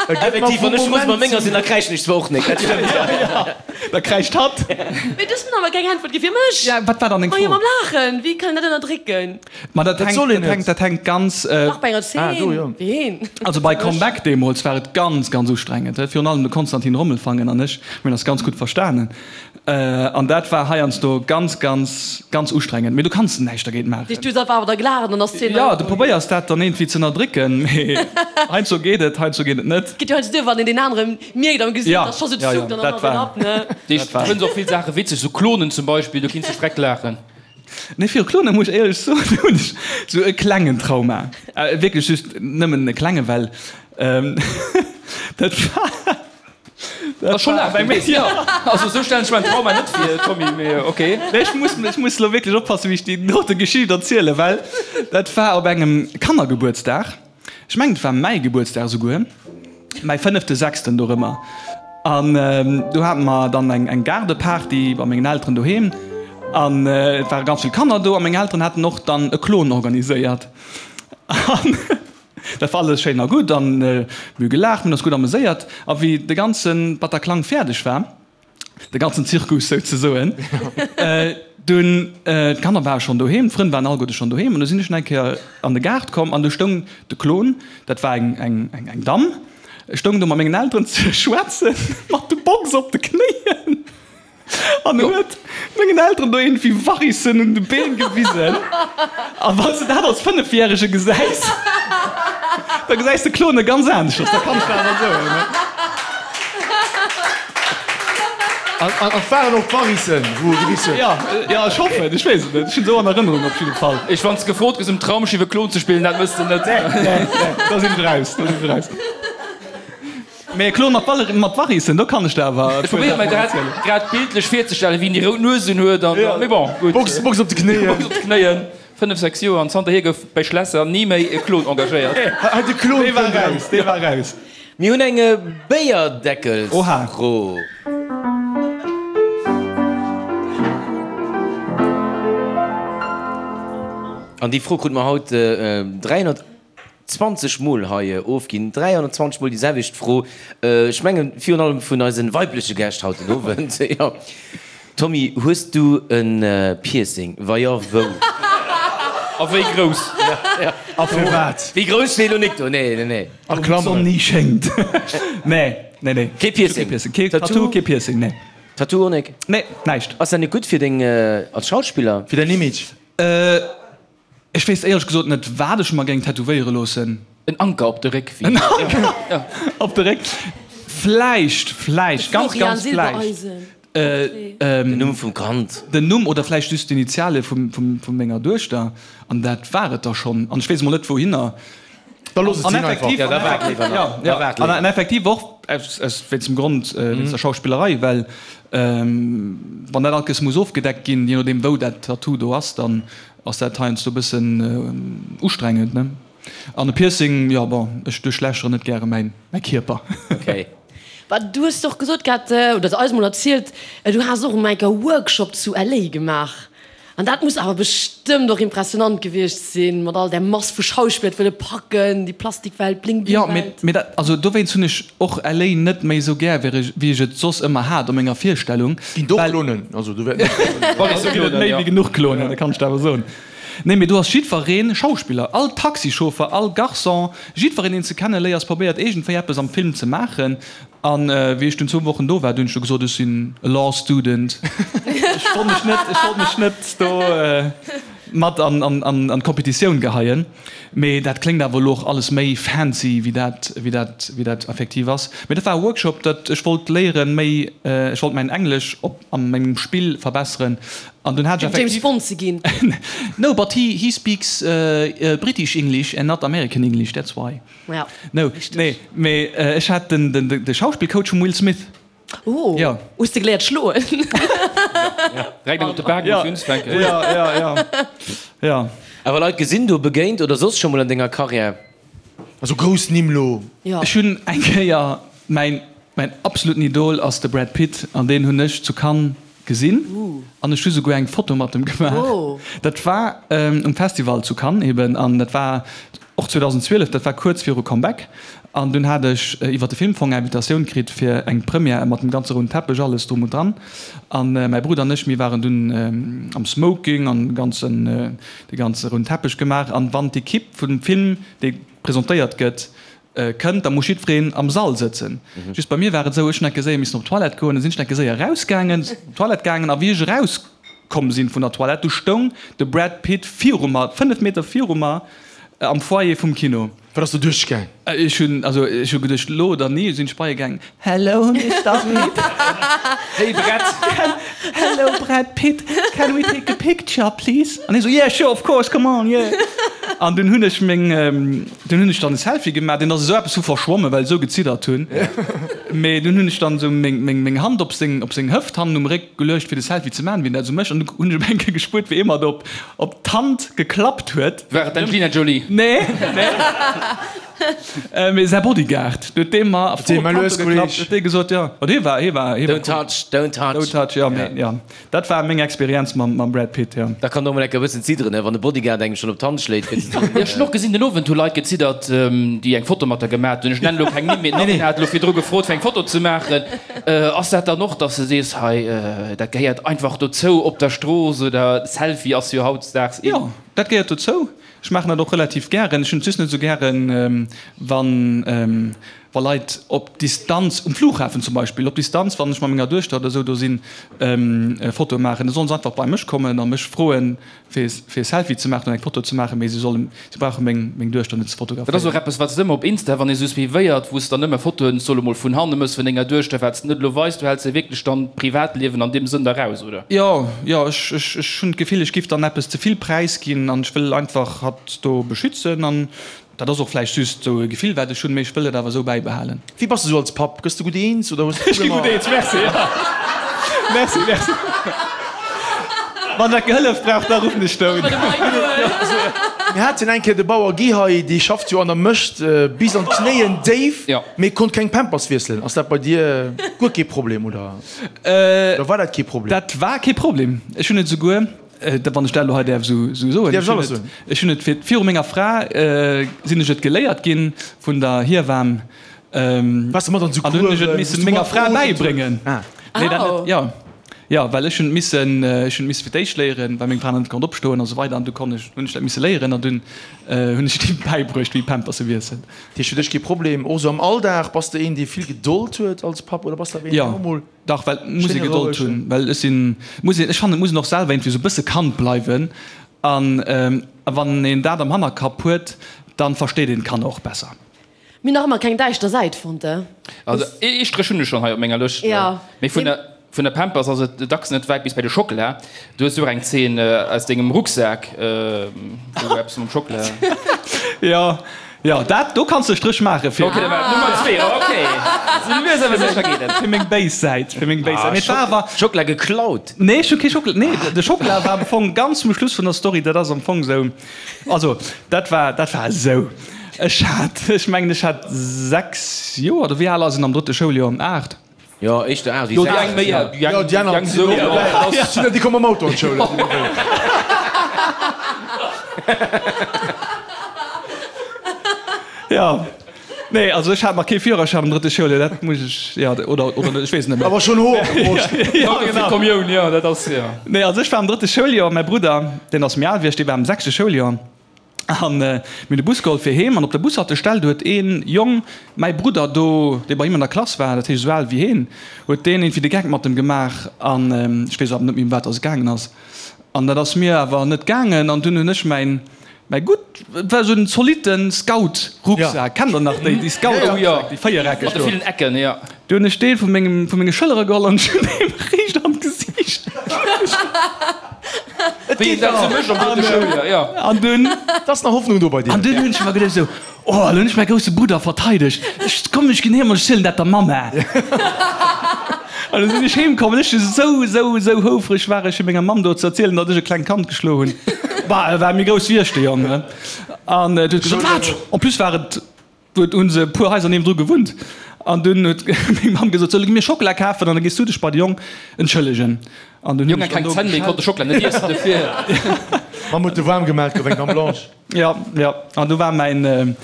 Effektiv, wann ech rose mat menger sinn, da kräischen ech zwar och nik, dat stëmmt. Da kräischt hatt. Mee du hues mir awer keng Äntwert gi fir mech. Ja, wat war dann deng Fro? Majo, mam Laachen, wéi kann een dat ënnerdrécken? Ma dat hänkt, soll een dat hänkt, net. dat hänkt ganz. Dach, bei enger Ah, do, Zeen, jo. ween? Also bei Comeback deemools war et ganz, ganz ustrengend. Virun allem de Konstantin Rommelfangen an ech, mir hunn eis ganz gutt verstanen. An dat war heiansdo ganz, ganz, ganz ustrengend. Mee du kanns näischt dergéint maachen. Du hues einfach awer da gelaacht an ass d'Zeen Jo, du probéiers dat dann iergendwéi ze ënnerdrécken, mee heiansdo geet et, heiansdo geet et net. Geet jo heiansdo duer, wann een deen anere mierkt am Gesicht, Ja, dass scho sou ja, ja, zuckt an dann dat ass et war. ab, ne? Du fënns och vill Saache witzeg, sou Klonen zum Beispill, do kinns de freck laachen. Nee, viru Klone muss ech éierlech soen, hunn ech sou e klengen Trauma. Wierklech just nëmmen e klenge, well dat war. Dat ass scho laang bei mir. Jo, also esou stellen ech mer en Trauma net vir, Tommy, mee ok. Nee, ech muss, ech muss elo wierklech oppassen, wéi ech déi dote Geschicht erzielen, well dat war op engem Kannergebuertsdag. Ech mengen, et war mäi Gebuertsdag esouguer, mäi fënnefte, sechsten dorëmmer. An do hate mer dann eng, eng Gaardeparty bei mengen Elteren doheem. An et ware ganz vill Kanner do a meng Elteren haten och dann e Klon organiséiert. An Dat war alles schéin a gutt an mir hu gelaacht, mir hunn eis gutt ameséiert. A wéi de ganze Bataclan fäerdeg war, de ganzen Zirkus souzesoen, dunn, d'Kanner ware schonn doheem, d'Frënn waren alleguerte schonn doheem an du sinn ech nach eng Kéier an de Gaart komm an du stoung de Klon, dat war eng, eng, eng Damm, stoung do mat mengen Elteren ze schwätzen, mat de Box op de Knéien. An huet mengen Elteren do iergendwéi Varissen un de Been gewisen. A wann s de dat als Fënnefjärege gesäis, da gesäis de Klone ganz aneschters, dat kann ech der awer soen. An et waren och d'Varissen, wou e gewisen huet? Jo, jo, ech hoffen, ech weess et net, ech hunn esou an Erënnerung op jidde Fall. Ech, wann s de gefrot gëss um Traumschiff e Klon ze spillen, dat mëss de net. Nee, nee, nee, da sinn ech raus, da sinn ech raus. Mee Klon mat Valer mat Varissen, do kann ech der awer Ech probéiere mer grad grad bildlech virzestellen, wéi en déi rout Nues un huet an dann, mee bon, gutt. Box Box op de Knéien. Box op de Knéien, 5, 6 Joer an zanterhier gouf bei Schlesser ni méi e Klon engagéiert. Hei de Klon Dee war raus, dee war raus. Mir hunn eng Béierdeckelsfro. An déi Fro krute mer haut 300. 20 mol hei ofginn, 320 mol déi selwecht Fro, ech mengen virun allem vun eisen weibleche Gäscht haut den Owend. Jo. Tommy, hues du e Piercing? Wa jo, wou? A wéi grouss? A firwat? Wéi grouss steet elo nik do, nee, nee, nee. A Klammeren. D'Sonn ni schéngt. Nee, nee, nee. Kee Piercing? Kee Tattoo, kee Piercing, nee. Tattoo och nik? Nee, näischt. Ass dat nik gutt fir deng, als Schauspiller? Fir däin Image? Ech wéisst éierlech gesot net wat ech mer géing tätowéiere loossen. En Anker op de Réck. En Anker op de Réck. Vläicht, vläicht, ganz, ganz vläicht. Den Numm vum Kand. Den Numm oder vläicht just d'Initiale vu menger Duechter. An dat war et da schonn. An ech weess emol net wouhinner. Da looss et sinn einfach. Ja, da waart léiwer nach. Ja, ja. An effektiv och aus, aus wéinst dem Grond, wéinst der Schauspillerei, well wann dat alt muss ofgedeckt ginn, je nodeem wou dat Tattoo do ass, dann Ass dat heiansdo bëssen ustrengend, ne? An e Piercing, jo bon, ech duerchlächere net gäre mäin mäi Kierper. Okay. Bah, du hues och gesot gehat, oder eis mol erzielt, du has och emol eng Kéier e Workshop zu LA gemaach. An dat muss awer bestëmmt och impressionant gewiescht sinn, mat all där Mass vu Schauspiller, et wëlle packen, déi Plastikwelt, Bling-Bling-Welt. Jo, mee, mee dat, also dowéinst hunn ech och LA net méi esou gär, wéi ech, wéi ech et soss ëmmer hat a menger Virstellung, Ginn do well. Klonen, also do wäerten och. Do ginn et méi wéi genuch Klonen, dat kann ech der awer soen. Nee, mee do ass jiddweree Schauspiller, all Taxichauffer, all Garçon, jiddwereen, deen s de kenneléiers, probéiert iergendwéi eppes am Film ze maachen. An wéi ech dunn zwou Wochen do war, du hunn ech du gesot, ech sinn e Law Student. Ech wollt mech net, ech wollt mech net do mat an, an, an, an d'Kompetitioun geheien. Mee dat kléngt awer elo och alles méi fancy, wéi dat, wéi dat, wéi dat effektiv ass. Mee dat war e Workshop, dat ech wollt léieren, méi, ech wollt mäin Englesch op, a mengem Spill verbesseren. An dunn hat ech Fir James effektiv. Bond ze ginn. No, but he, he speaks British English and not American English, that's why. Ja, No, richtig. nee, mee ech hat den, den, de Schauspillcoach vum Will Smith. Oh, Ja. hues de geléiert schloen? Direkt eng op de Bak muss unzfänken. Ja, ja, ja, ja. Awer Leit gesinn do, begéint oder soss scho mol an denger Karriär? Also grouss Nimm lo. Ja. Ech hunn eng Kéier, mäin, mäin absoluten Idol ass de Brad Pitt an deen hunn ech zu Cannes gesinn an ech hu souguer eng Foto mat em gemaach. Dat war um Festival zu Cannes eben an dat war och 2012, dat war kuerz viru Comeback an dunn hat ech iwwer de Filmfong eng Invitatioun kritt fir eng Première mat dem ganze rouden Teppech, alles drum und dran an mäi Brudder an ech, mir waren dunn am Smoking an ganzen, de ganze rouden Teppech gemaach an wann d'Equipe vum Film, dee presentéiert gëtt, Kënnt, da muss jiddwereen am Sall sëtzen. Just bei mir war et esou, ech hunn enke séier missen op d'Toilette goen, da sinn ech enke séier erausgaangen, op d'Toilette gaangen a wéi ech erauskomm sinn vun der Toilette, du stoung de Brad Pitt viru mer, 5 Meter viru mer am Foyer vum Kino. Wat ass do duerchgaang? Ech hunn, also ech hu geduecht, elo oder ni, sinn ech bei e gaangen, Hello Mister Pitt. Hey Brad. Hello Brad Pitt, can we take a picture please? An hie sou, yeah sure of course, come on, yeah. An dunn hunn ech meng, dunn hunn ech dann e Selfie gemaach, deen ass esou eppes vu verschwommen, well ech esou geziddert hunn. Mee dunn hunn ech dann esou meng, meng, meng Hand op seng, op seng Hëft hannen um Réck geluecht fir de Selfie ze maachen, wéi en dat esou mécht. An du hunn ech op eng Kéier gespuert, wéi ee mer do op, op d'Hand geklappt huet. War et d'Angelina Jolie? Nee, nee. Mee säi Bodyguard, huet dee mer voll op d'Kante geklappt, huet dee gesot, jo, ma dee war, hie war, hie war Don't touch, don't touch. Don't touch, jo, mee jo, dat war meng Experienz mam, mam Brad Pitt, jo. Da kann och mol enker e bëssen zidderen, ne, wann de Bodyguard engem schonn op d'Hand schléit, fir ze soen. Jo, ech hunn och gesinn, den Owend hu Leit geziddert, déi eng Foto mat der gemat hunn. Ech nennen elo keng Nimm, mee d'Nadine hat elo virdru gefrot, fir eng Foto ze maachen. Ass dat dann och, dass de sees, hei, dat gehéiert einfach dozou op der Strooss oder Selfie ass jo hautdesdaags in? Jo, dat gehéiert dozou. Ech maachen dat och relativ gären. Ech hunn et just net esou gären, wann, wa Leit op Distanz, um Flughafen zum Beispill, op Distanz, wann ech mat menger Duechter oder esou do sinn, Fotoe maachen. Da sollen se einfach bei mech kommen a mech froen, fir e Selfie ze maachen oder eng Foto ze maachen, mee se sollen, se brauche meng, meng Duechter net ze Dat ass fotograféieren. och eppes, wat s de ëmmer op Insta, wann ee sou suivéiert, wou s de dann ëmmer Fotoen, soll emol vun hanne mëss vun denger Duechter, wat s de net elo weis, du häls jo wierklech dann d'Privatliewen an deem Sënn da raus, oder? Jo, jo, ech, ech, ech hunn d'Gefill, ech giff dann eppes ze vill präisginn an ech wëll einfach hatt do beschützen an dat ass och vläicht just esou e Gefill, wat ech hunn, mee ech wëll et awer esou bäibehalen. Wéi bass de sou als Papp? Gëss de gutt eens oder hues de Ech gi gutt Problemer? eens, merci, jo. Merci, merci. Wann dat gehëllef brauch, da ruffen ech do un. Mir haten eng Kéier de Bauer Guy hei, dee schafft jo an der Mëscht bis an d'Knéien déif, mee konnt keng Pampers wiesselen. Ass dat bei dir guer kee Problem oder? Oder war dat kee Problem? Dat war kee Problem. Ech hunn et esouguer, wann ech dat elo hei däerf esou soen, Däerfs alles soen. ech hunn et fir viru menger Fra sinn ech et geléiert ginn vun der Hiewan. Waars de mat an esou An hunn ech et Coursen? misse menger Fra bäibréngen. Nee, dat net, jo. Jo, well ech hunn et missen, ech hunn et misse fir d'éischt léieren, well meng Fra nach net konnt opstoen a sou weider. An du konnt ech, hunn ech dat misse léieren an dunn hunn ech him bäibruecht, wéi Pampers se wiesselt. Dat heescht fir dech kee Problem? Och esou am Alldag, bass de een, dee vill Gedold huet als Papp oder bass de awer een, deen och mol. Dach, well et muss ee Schéine Gedold rouegen. hunn, well ech sinn, muss een, ech fannen, et muss een och selwer iergendwéi esou e bësse Kand bleiwen an wann een dat am Hannerkapp huet, dann versteet een d'Kanner och besser. Mir nach ëmmer keng däischter Säit fonnt, eh? Also ee Stréch hunn ech schonn hei op menger Lëscht, Ja. mee vun der vun der Pampers ass et dacks net wäit bis bei de Schockela. Du hues jo och eng Zeen aus dengem Rucksak, wou eppes mam Schockela. Jo, Jo, dat do kanns de e Stréch maache fir. Ok, dat war Nummer zwee, ok. Sou lues awer sécher geet et. Fir meng béis Säit, fir meng béis Säit. Mee et war awer. Schockela geklaut? Nee, ech hu kee Schockela, nee, de Schockela war am Fong ganz zum Schluss vun der Story. Dat ass am Fong sou, also dat war, dat war esou, ech hat, ech mengen ech hat 6 Joer, oder wéi al ass een am drëtte Schouljoer? 8? Jo, éischter 8 wéi 6. Jo, déi eng méi, déi eng, déi eng sou. Jo, déi komme mam Auto an d'Schoul. Jo, nee, also ech hat nach kee Führerschäin am drëtte Schouljoer, dat muss ech, jo, oder, oder net, ech weess et net méi. Awer schonn Hoer op der Broscht. Jo, genau. Kommioun, jo, dat ass, jo. Nee, also ech war am drëtte Schouljoer, mäi Brudder, deen ass méi al wéi ech, dee war am sechste Schouljoer. An mir hunn de Bus geholl fir heem an op der Bushaltestell, do huet ee Jong mäi Brudder do, dee bei him an der Klass war, dat heescht esou al wéi heen, huet deen iergendwéi de Geck mat em gemaach an ech weess awer net méi ëm wat dass et gaangen ass. An dat ass mir awer net gaangen an dunn hunn ech mäin, mäi gutt, et war esou en zolitte Scout-Rucksak, kennt der nach déi, déi Scout-Rucksäck, déi véiereckeg Mat de do? villen Ecken, jo. Du hunn ech Deel vu mengem, vu menge Schëllere geholl an ech hunn him riicht an d'Gesiicht Et Wéi een geet dat nach. sou mécht am drëtte Schouljoer, jo. An dunn. Et ass nach Hoffnung do bei dir. An dunn hunn ech mer geduecht esou, Oh, elo hunn ech mäi grousse Brudder verteidegt. Ech, komm, ech ginn heem an ech zielen dat der Mamma. An du sinn ech heem komm an ech esou, esou, esou houfreg war ech fir menger Mamm do ze erzielen, datt ech e klengt Kand geschloen hunn. Bah, e war méi grouss wéi ech, de Jong, ne? An huet gesot, Wat? En plus war et. Do hunn se e puer Haiser niewendru gewunnt an dunn huet meng Mamm gesot, Solle mir Schockela kafen an da gees du dech bei de Jong entschëllegen. An dunn hunn Jong ech hat dann keng do Zänn méi, konnt de Schockela net iessen dofir. Mamm huet de waarm gemat, gouf eng Dame blanche. Jo, jo, an du war mäin,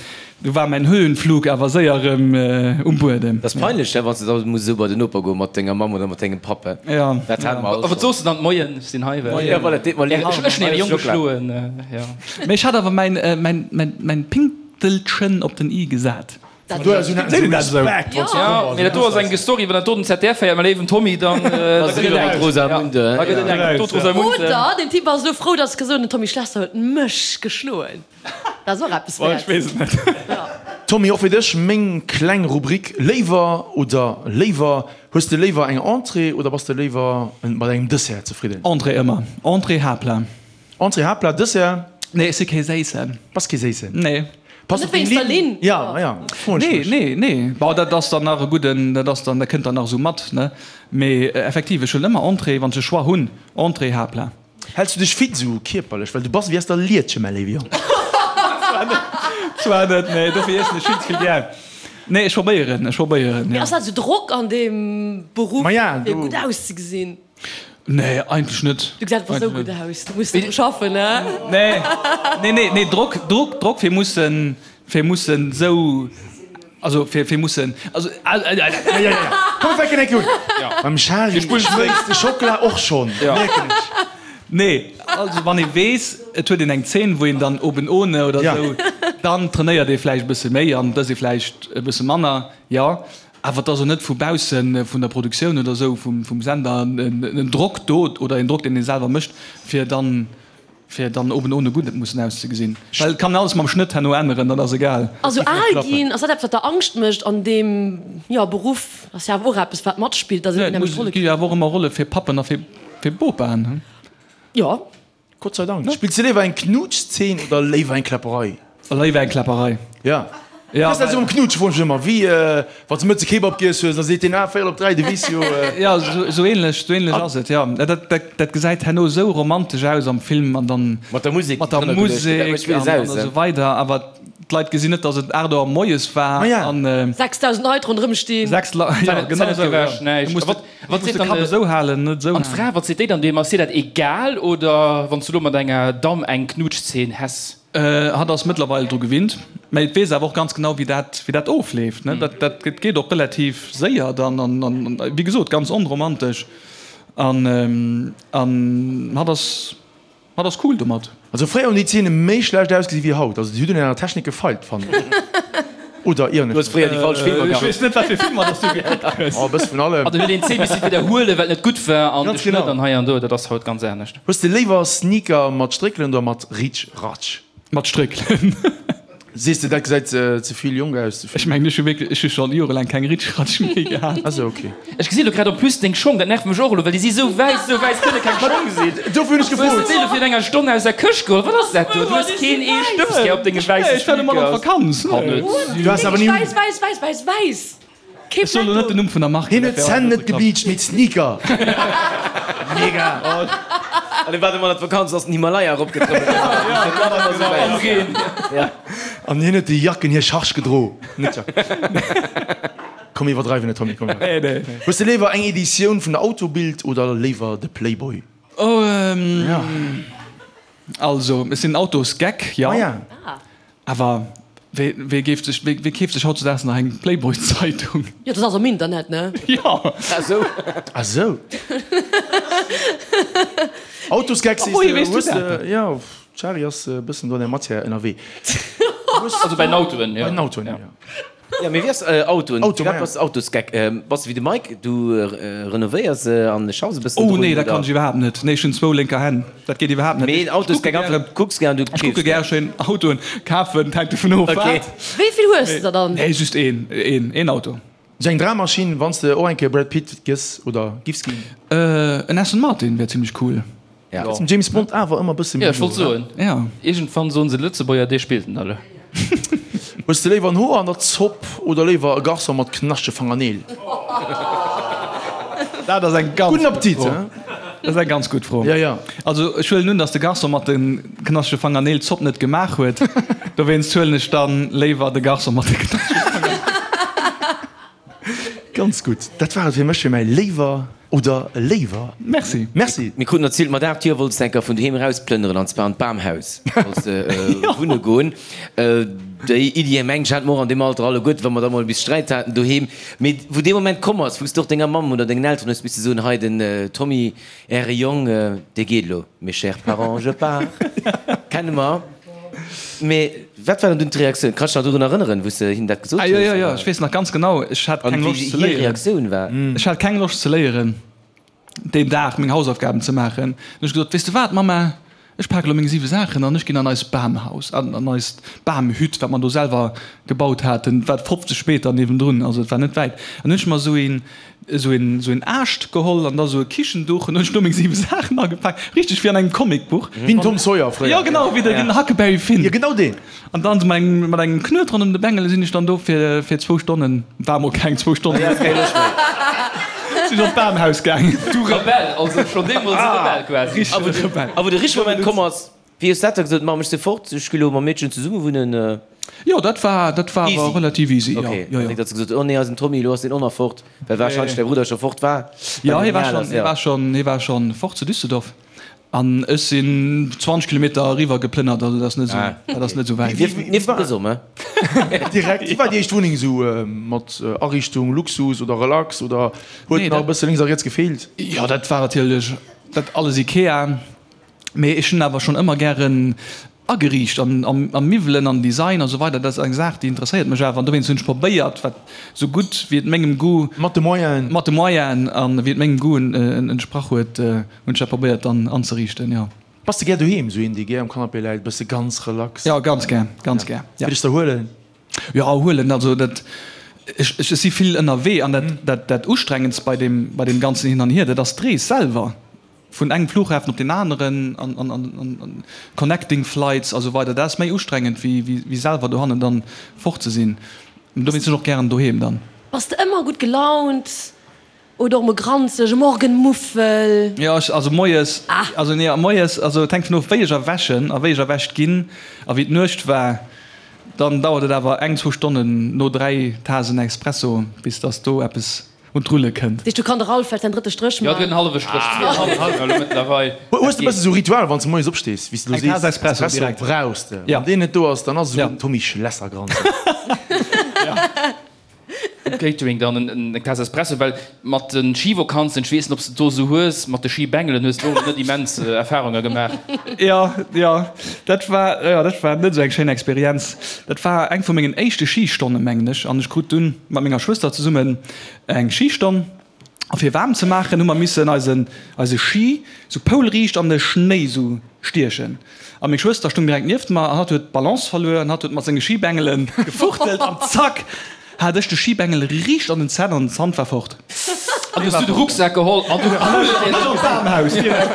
du war mäin Höhenflug awer séier erëm um Buedem. Dat ass peinlech, ne, wann s de da muss esou bei den Noper goe mat denger Mamm oder mat dengem Papp, he? Jo. Dat hate mer all A wat schonn. soos de dann? Moien, ech sinn hei, well. Jo, voilà, deet mer leed. Ech hunn äre Jong geschloen, jo. Mee ech hat awer mäin, mäin, mäin, mäin Pink. Telchen op den i gesat. Vun do aus un haten se Respekt, wann se komm Jo, mee dat do ass eng Story, wann dat do den ZDF héiert, mäi léiwen Tommy, dann da gëtt et enk. Rosamunde. Da gëtt et enk. Do d'Rosamunde. Oder den Typ ass elo frou, dass gesot den Tommy Schlesser huet mech geschloen. Dat ass och eppes Boah, ech wäert. weess et net. Tommy, och fir dech meng kleng Rubrik Léiwer oder léiwer. Hues de léiwer eng Entrée oder bass de léiwer mat engem Dessert zefridden? Entrée ëmmer. Entrée, Haaptplat. Entrée, Haaptplat, Dessert? Nee, ech si kee Séissen. Bass kee Séissen? Nee. Pass Net op deng wéinst der Linn. Linn? Ja, ma ja, froen ech Nee, mech. nee, nee. Bon, dat ass dann nach e gudden, dat ass dann, dat kënnt dann nach esou mat, ne? Mee effektiv, ech huelen ëmmer Entrée, wann ech e Choix hunn, Entrée, Haaptplat. Häls du dech fit esou kierperlech? Well du bass ewéi aus der Lietche, mäi léiwe Jong. Zwar net, nee, dofir iessen ech vill ze vill gär. Nee, ech probéieren, ech probéieren, Mee jo. ass dat esou Drock an deem Beruff, Ma ja, fir do. gutt auszegesinn? Nee, eigentlech net. Du gesäis awer sou gutt aus, du muss net dru schaffen, ne? Nee, nee, nee, nee, Drock, Drock, Drock fir mussen, fir mussen sou, also fir, fir mussen, also. Ja, ja, ja, komm mir fänken enk un. Beim Charly schmëlzt de Schockela och schonn, mierken ech. Nee, also wann ee weess, et huet een eng Zeen, wou een dann oben ohne oder sou, dann trainéiert ee vläicht e bësse méi an dës ee vläicht e bësse manner, jo. Awer et ass och net vu bausse vun der Produktioun oder esou, vum Sender en Drock do oder een Drock, deen ee selwer mécht, fir dann, fir dann oben ohne gutt mussen auszegesinn. Well et kann een alles mam Schnëtt herno änneren, dat ass egal. Also al ginn, ass dat eppes, wat der Angscht mécht an deem, jo, Beruff? Ass jo awer och eppes, wat matspillt, dass een unheemlech Rolle Et gi jo awer och ëmmer Rolle fir Pappen a fir Bopaen. Jo. Gott sei Dank. Spills de léiwer eng Knuutschzeen oder léiwer eng Kläpperei? Léiwer eng Kläpperei. Ja. Ja, Wéi ass dat esou mam Knuutschen, froen ech mech ëmmer. Wéi wann s de mëttes e Kebab giess hues, da seet deen, ah, véierel op 3, de weess jo. Ja, esou ähnlech, esou ähnlech ass et, jo. Dat, dat, dat gesäit herno esou romantesch aus am Film an dann. Mat der Musek, Mat der Musek an esou weider. Awer d'Leit gesinn net, dass et 8 Auer moies war an. 6.000 Leit ronderëm stinn. 6 Leit, ja, genau esou, ja. Wat seet dann de Kapp esou halen, net esou An d'Fra, wat seet déi dann deem? Ass hir dat egal oder wann s du lo mat enger Damm eng Knuutschzeen häss? Hatt ass mëttlerweil dru gewinnt, mä et weess awer och ganz genau wéi dat wéi dat ofleeft, ne. Dat dat geet och relativ séier dann an an wéi gesot ganz onromantesch an an hatt ass Hatt ass cool domat. Also fréier hunn déi Zeene méi schlecht ausgesi wéi haut. Also déi hunn un enger Technik gefeilt, fannen ech. Oder ieren Du ech hues fréier déi falsch Filmer Ech gekuckt. weess net wat fir Filmer dass du gekuckt hues. Oh, e bësse vun allem. An du huet een d'Zeen misse widderhuelen, well et net gutt war an de Ganz Schnëtt genau. an hei an do, dat ass haut ganz anescht. Hues de léiwer Sneaker mat Stréckelen oder mat Ritsch-Ratsch? Mat Stréckelen. Sees de, dat gesäit ze vill jonk aus, ze vill. Ech mengen, ech hu wierklech, ech hu scho jorelaang keng Ritschratsch méi gehat. Ah sou, ok. Ech gesinn elo grad en plus deng Schong, dat nervt mech och elo, well déi si sou wäiss, sou wäiss kënne keng Schong sinn. Dofir hunn ech Hues de gefrot. déi elo virun enger Stonn aus der Këscht geholl? Wat ass dat do? Du hues keen ee Stëbs gär op denge wäisse Ech war domat an Sneakers. d'Vakanz. Kann net sinn. Du has awer ni un. Wäiss, wäiss, wäiss, wäiss, wäiss. Ech soen elo net den Numm vun der Mark. Hien huet d'Zänn net gebleacht, mee d'Sneaker. Mega! An dee war domat an d'Vakanz, ass den Himalaya eropgetrëppelt. Am Reen. An hien huet déi Jacken, hir Charge gedro. Net Jacken. Komm mir iwwerdreiwen net, Tommy, komm. Nee, nee. Hues de léiwer eng Editioun vun der Autobild oder léiwer de Playboy? Oh, ähm. Also, ech sinn Autosgeck, jo. Ah. Awer wee, wee géif sech, wee, wee keeft sech hautzedaags nach eng Playboy-Zeitung? Jo, dat ass am Internet, ne? Jo. Ah sou. Ah sou. Autosgeck sees de, hues de, jo, d'Shari ass e bëssen do an der Matière ënnerwee. Also bei den Autoen, jo. Bei den Autoen, jo. Jo, mee wéi ass Autoen? Auto, Firwat bass de Autosgeck? Bass de wéi de Mike, du renovéiers se an schaffs e bëssen Oh drun, nee, dat oder? kann ech iwwerhaapt net. Nee, ech hunn zwou lénker Hänn. Dat geet iwwerhaapt net. Mee Autosgeck einfach, du kucks gär an du Ech kucke keefs gär. gär schéin Autoen kafen, et hänkt dovun of Okay. wat. Wéi vill hues de der dann? Nee, just een, een, een Auto. Sou eng Drammaschinn, wann s de och eng Kéier Brad Pitt gëss oder giffs ginn? En Aston Martin wär zimmlech cool. Ja. Ass dem James Bond awer ëmmer bësse méi Ja, ech wollt no, soen. Ja. Iergendwann soen se Lëtzebuerger, dee spillt en alle. Hues de léiwer en Hoer an der Zopp oder léiwer e Garçon mat knaschtege Fangerneel? Dat ass eng ganz Gudden gutt Appetit, Fro. hein? Dat ass eng ganz gutt Fro. Ja, ja. Also ech huelen un, datt de Garçon mat de knaschtege Fangerneel d'Zopp net gemaach huet. Dowéinst huelen ech dann léiwer de Garçon mat de knaschtege Fangerneel. Ganz gutt. Dat war et fir mech fir mäi Léiwer oder Léiwer. Merci. Merci. Mir kruten erzielt, mat 8 Joer wollts de enker vun doheem erausplënneren an zwar an d'Bamhaus wollts de wunne goen. Déi Iddi, mengen ech, hate mer och an deem Alter alleguerten, wa mer da mol bis Sträit haten doheem. Mee wou dee Moment komm ass, wou s de och denger Mamm oder dengen Elteren hues misse soen, hei den Tommy, Äre Jong, dee geet elo, mes chers parents, je pars, kenne mer. Mee wat war dann dunn d'Reaktioun? Kanns de dech nach dorun erënneren, wou s de hinnen dat gesot Ah, jo, hues? jo, jo, ech weess nach ganz genau, ech hat An keng wéi Loscht ze hir léieren. Reaktioun war? Ech hat keng Loscht ze léieren, deen Dag meng Hausaufgaben ze maachen. Dann hunn ech gesot, Weess de wat, Mamma, ech pake lo meng siwe Saachen an ech ginn an eist Bamhaus, an an eist Bamhütt, wat mer do selwer gebaut haten, wat 50 Meter niewendrun, also et war net wäit. An hunn ech mer esou een, esou een, esou een Aascht geholl an da esou e Kichenduch an hunn ech do meng 7 Saachen agepaakt, richteg wéi an engem Comicbuch. Wéi den Tom Sawyer fréier. Jo genau, wéi den Huckleberry Finn. Jo genau deen. An dann mat engem, mat engem Knuet ronderëm de Bengel sinn ech dann do fir, fir zwou Stonnen, war mol keng zwou Stonnen, sinn ech op d'Bamhaus gaangen. Du Rebell, also schonn deemools e Rebell quasi. Richtege Rebell. A wou de richtege Moment komm ass, Wéi hues dat da gesot, Mamm, ech si fort, ech gi lo mam Meedchen zesumme wunnen? Jo, dat war, dat war awer relativ easy, jo. Ok, Jo, jo. net datt s de gesot hues, oh nee, eisen Tommy, elo ass deen och nach fort, well warscheinlech däi Brudder scho fort war. Jo, hie war schonn, hie war schonn, hie war schonn fort zu Düsseldorf an ech sinn 20 Kilometer eriwwer geplënnert, also dat ass net esou, dat ass net esou wäit. Nieft, nieft dem Gësom, he? Direkt. Wéi war déi éischt Wunneng esou mat Ariichtung, Luxus oder Relax oder huet Nee, nach e dat. bësse lénks a riets gefeelt? Jo, dat war natierlech dat alles Ikea. Mee ech hunn awer schonn ëmmer gären ageriicht an a Miwwelen an Design a sou weider. Dat ass eng Saach, déi interesséiert mech awer an dowéinst hunn ech probéiert, wat sou gutt wéi et mengem Goût, Mat de Moyenen. mat de Moyenen an wéi et mengem Goût entsprach huet, hunn ech dat probéiert dann anzeriichten, jo. Bass de gär doheem, sou een dee gär um Canapé läit, bësse ganz relax? Jo, ganz gär, ganz gär, ja. Fir dech z'erhuelen? Jo, erhuelen, also dat, ech, ech si vill ënnerwee an dat, dat, dat Ustrengendst bei deem, bei deem ganzen Hin an Hier, dat ass d'Rees selwer. Vun engem Flughafen op deen aneren an connecting flights a sou weider, dat ass méi ustrengend wéi selwer dohannen dann fort ze sinn. Dowéinst sinn ech och gären doheem dann. Bass de ëmmer gutt gelaunt oder och mol granzeg, e Morgenmuffel? Jo, ech, also moies, also nee, moies, also et hänkt vun of wéi ech erwächen a wéi ech erwächt ginn a wéi d'Nuecht war. Dann dauert et awer eng, zwou Stonnen no 3 Tasen Espresso bis dass do eppes Un d'Rulle kënnt. Deesch, du kann de Ralph vläicht säin drëtte Stréch Jo, man. den hallwe Stréch, zweeënhallwen elo mëttlerweil. Hues de bësse sou Ritual wann s de moies opstees, wéi s de lo Eng sees, Taass Espresso direkt. brauchs de. Ja. Wann deen net do ass, dann ass esou Ja. den Tommy Schlesser granzeg. Um Catering dann eng Taass Espresso, well mat de Schivakanzen, ech weess net, ob s de do esou hues, mat de Schibengelen hues de och net immens Erfarunge gemaach. Jo, jo, dat war, jo, dat war net esou eng schéin Experienz. Dat war eng vu mengen éischte Schistonnen, mengen ech, an ech krut dunn mat menger Schwëster zesummen eng Schistonn. A fir waarm ze maachen, hu mer missen eisen, eise Schi sou poulriicht an de Schnéi sou stiechen. A meng Schwëster stung direkt nieft mer an hatt huet d'Balance verluer an hatt huet mat senge Schibengele gefuchtelt an zack hat ech de Schibengel riicht an den Zänn an den Zant war fort. An hues du de Rucksak geholl an du Bamhaus direkt.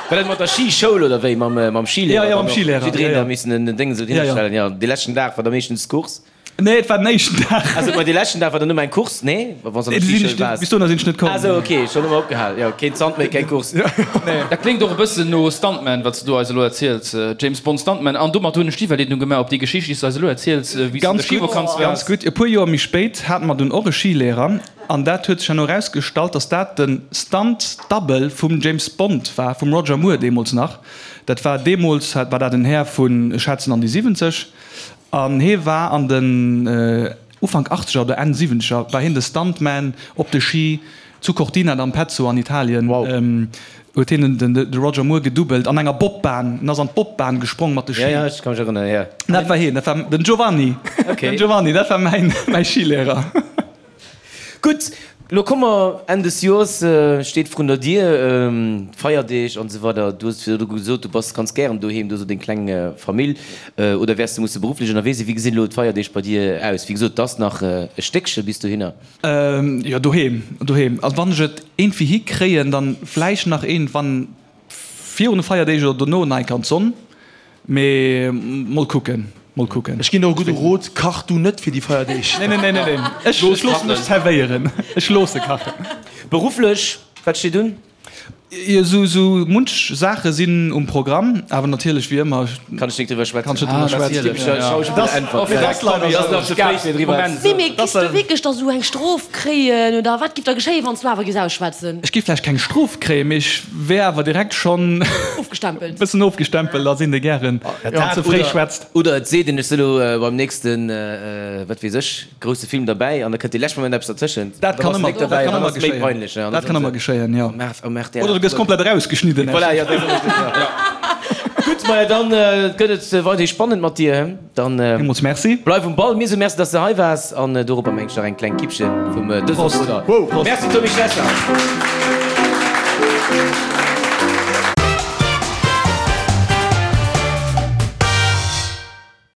War dat mat der Schischoul oder wéi? Mam, mam Schilehrer? Ja, ja, mam Schilehrer. Jiddereen Ja, ja. da missen en Déng esou Ja, ja. hinstellen. Ja, dee leschten Dag war da meeschtens Course. Nee, et war den éischten Dag. Also, ma dee leschten Dag war dann nëmme eng Course, nee? Wa wann s an der Skischoul waars. Bis dohinner sinn ech net komm. Ah sou, ok, schonn ëmmer opgehal. Jo, keen Zant méi, keng Course. Nee. Dat kléngt och e bëssen no Stuntman, wat s du do eis elo erziels. James Bond Stuntman. An domat hunn ech d'Iwwerleedung gemaach op déi Geschicht, déi s du eis elo erziels, wéi s du an der Ganz gutt, Schivakanz ganz waars. gutt. E puer Joer méi spéit hate mer dunn och e Skilehrer an dat huet sech herno erausgestallt, dass dat de Stunt Double vum James Bond war, vum Roger Moore deemools nach. Dat war deemools, war dat en Här vun, ech schätzen an déi 70. An hee war an den Ufank Achtzeger oder Enn Siwwenzeger war hien de Stuntman op de Ski zu Cortina d'Ampezzo an Italien. Huet hien de Roger Moore gedoubelt an enger Bobbahn. En ass an d'Bobbahn gesprong mat de Ski. Jo, jo, ech ka mech erënneren, jo. Dat war hien, dat war den Giovanni. Den Giovanni, dat war mäi Skilehrer. Gutt, lo komme mer, Enn des Joers steet vrun der Dier, d'Feierdeeg an esou weider. Du hues virdru gesot, du bass ganz gären doheem, du hues och deng kleng Famill. Oder wäers du musse berufflech ënnerwee sinn? Wéi gesinn elo d'Feierdeeg bei dir aus? Wéi gesot, et ass nach e Stéckche bis dohinner. Jo, doheem, doheem. Also wann ech et iergendwéi hikréien, dann vläicht nach iergendwann virun de Feierdeeg oder dono nach eng Kéier an d'Sonn. Mee mol kucken, mol kucken. Ech ginn der e gudde Rot, Kach du net fir déi Feierdeeg. Nee, nee, nee, nee, nee. Ech loosse mech zerwéieren. Ech loosse kachen. Berufflech, wat steet un? Jo, sou, sou munch Saache sinn um Programm, awer natierlech wéi ëmmer. Kann ech nik driwwer schwätzen. Kann ech net driwwer schwätzen. Nee, mee giss du wierklech da sou eng Strof kréien oder wat giff da geschéien, wann s du awer giss ausschwätzen? Ech giff vläicht keng Strof kréien, mee ech wär awer direkt schonn. Ofgestempelt. Bëssen ofgestempelt ass een de gären wann ze fréi schwätzt. Oder et seet een, ech si lo beim nächsten, wat weess ech, grousse Film derbäi an da kënnt dee leschte Moment eppes dertëschent. Dat kann ëmmer, dat kann ëmmer geschéien. Dat kann ëmmer geschéien, jo. Oder du gëss komplett erausgeschnidden. Voilà, jo, dat ass och jo. Gutt, maja, dann gëtt et weiderhi spannend mat dir. Dann Villmools Merci. Bleif um Ball. Mir soe Merci, dass de hei waars an doropper mengt ech nach eng kleng Kippche vum dësem Prost. Bruder. Prost. Merci Tommy Schlesser.